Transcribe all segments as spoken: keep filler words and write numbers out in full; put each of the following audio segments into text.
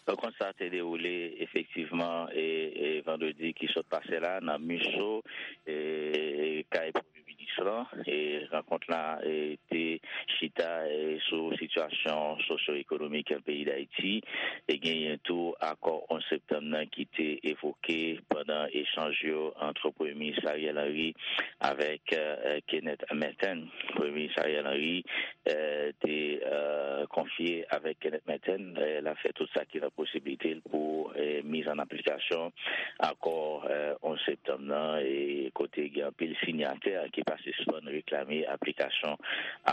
Rankont sa te dewoule efektivman e, e vandredi ki sot pase la nan Miso, e, kay Premye Minis lan. E rankont la e, te chita e, sou sitiyasyon sosyo-ekonomik peyi Dayiti. E genyen tou akò onz septanm nan ki te evoke pandan echanj yo ant Premye Minis Ariel Henry avèk e, Kenneth Merten. Premye Minis Ariel Henry e, te e, konfye avèk Kenneth Merten, e, l ap fè tout sa ki nan posiblite l pou e, miz an aplikasyon akò e, onz septanm nan, e kote gen anpil sinyatè ki pa sispann reklame aplikasyon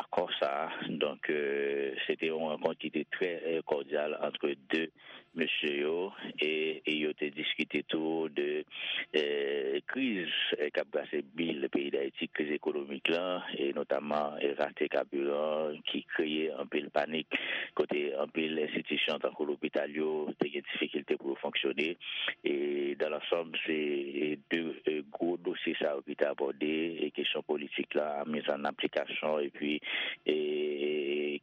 akò sa a. Donk, e, se te yon rankont ki te trè e, kòdyal ant de mesye yo, e, e yo te diskite tou de e, kriz e, k ap brase bil peyi Dayiti, kriz ekonomik lan, e notamman e, rate kabiran ki kreye anpil panik, kote anpil enstitisyon tankou lopital yo te gen difikilte pou yo fonksyone. E dan lansanm, se e, de e, gwo dosye sa yo ki te abòde, e kesyon politik la, miz an aplikasyon, epi e,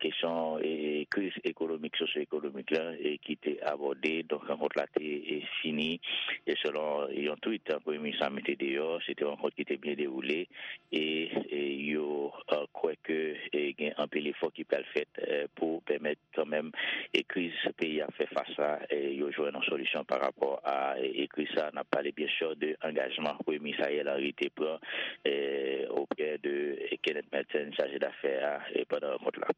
kesyon e, kriz ekonomik, sosyo-ekonomik la, e ki te abòde. Donk, rankont la te e, fini, e selon yon tweet Premye Minis la mete deyò, se te yon rankont ki te byen dewoule, e, e yo e, kwè ke e, gen anpil efò ki pral fèt e, pou pèmèt kanmenm e kriz peyi a fè fas la, e yo jwenn yon solisyon pa rapò a e, e kriz sa. N ap pale byen sè de angajman Premye Minis Ariel Henry te pran e, oprè de e, Kenneth Merten, chaje dafè a, e pandan rankont la.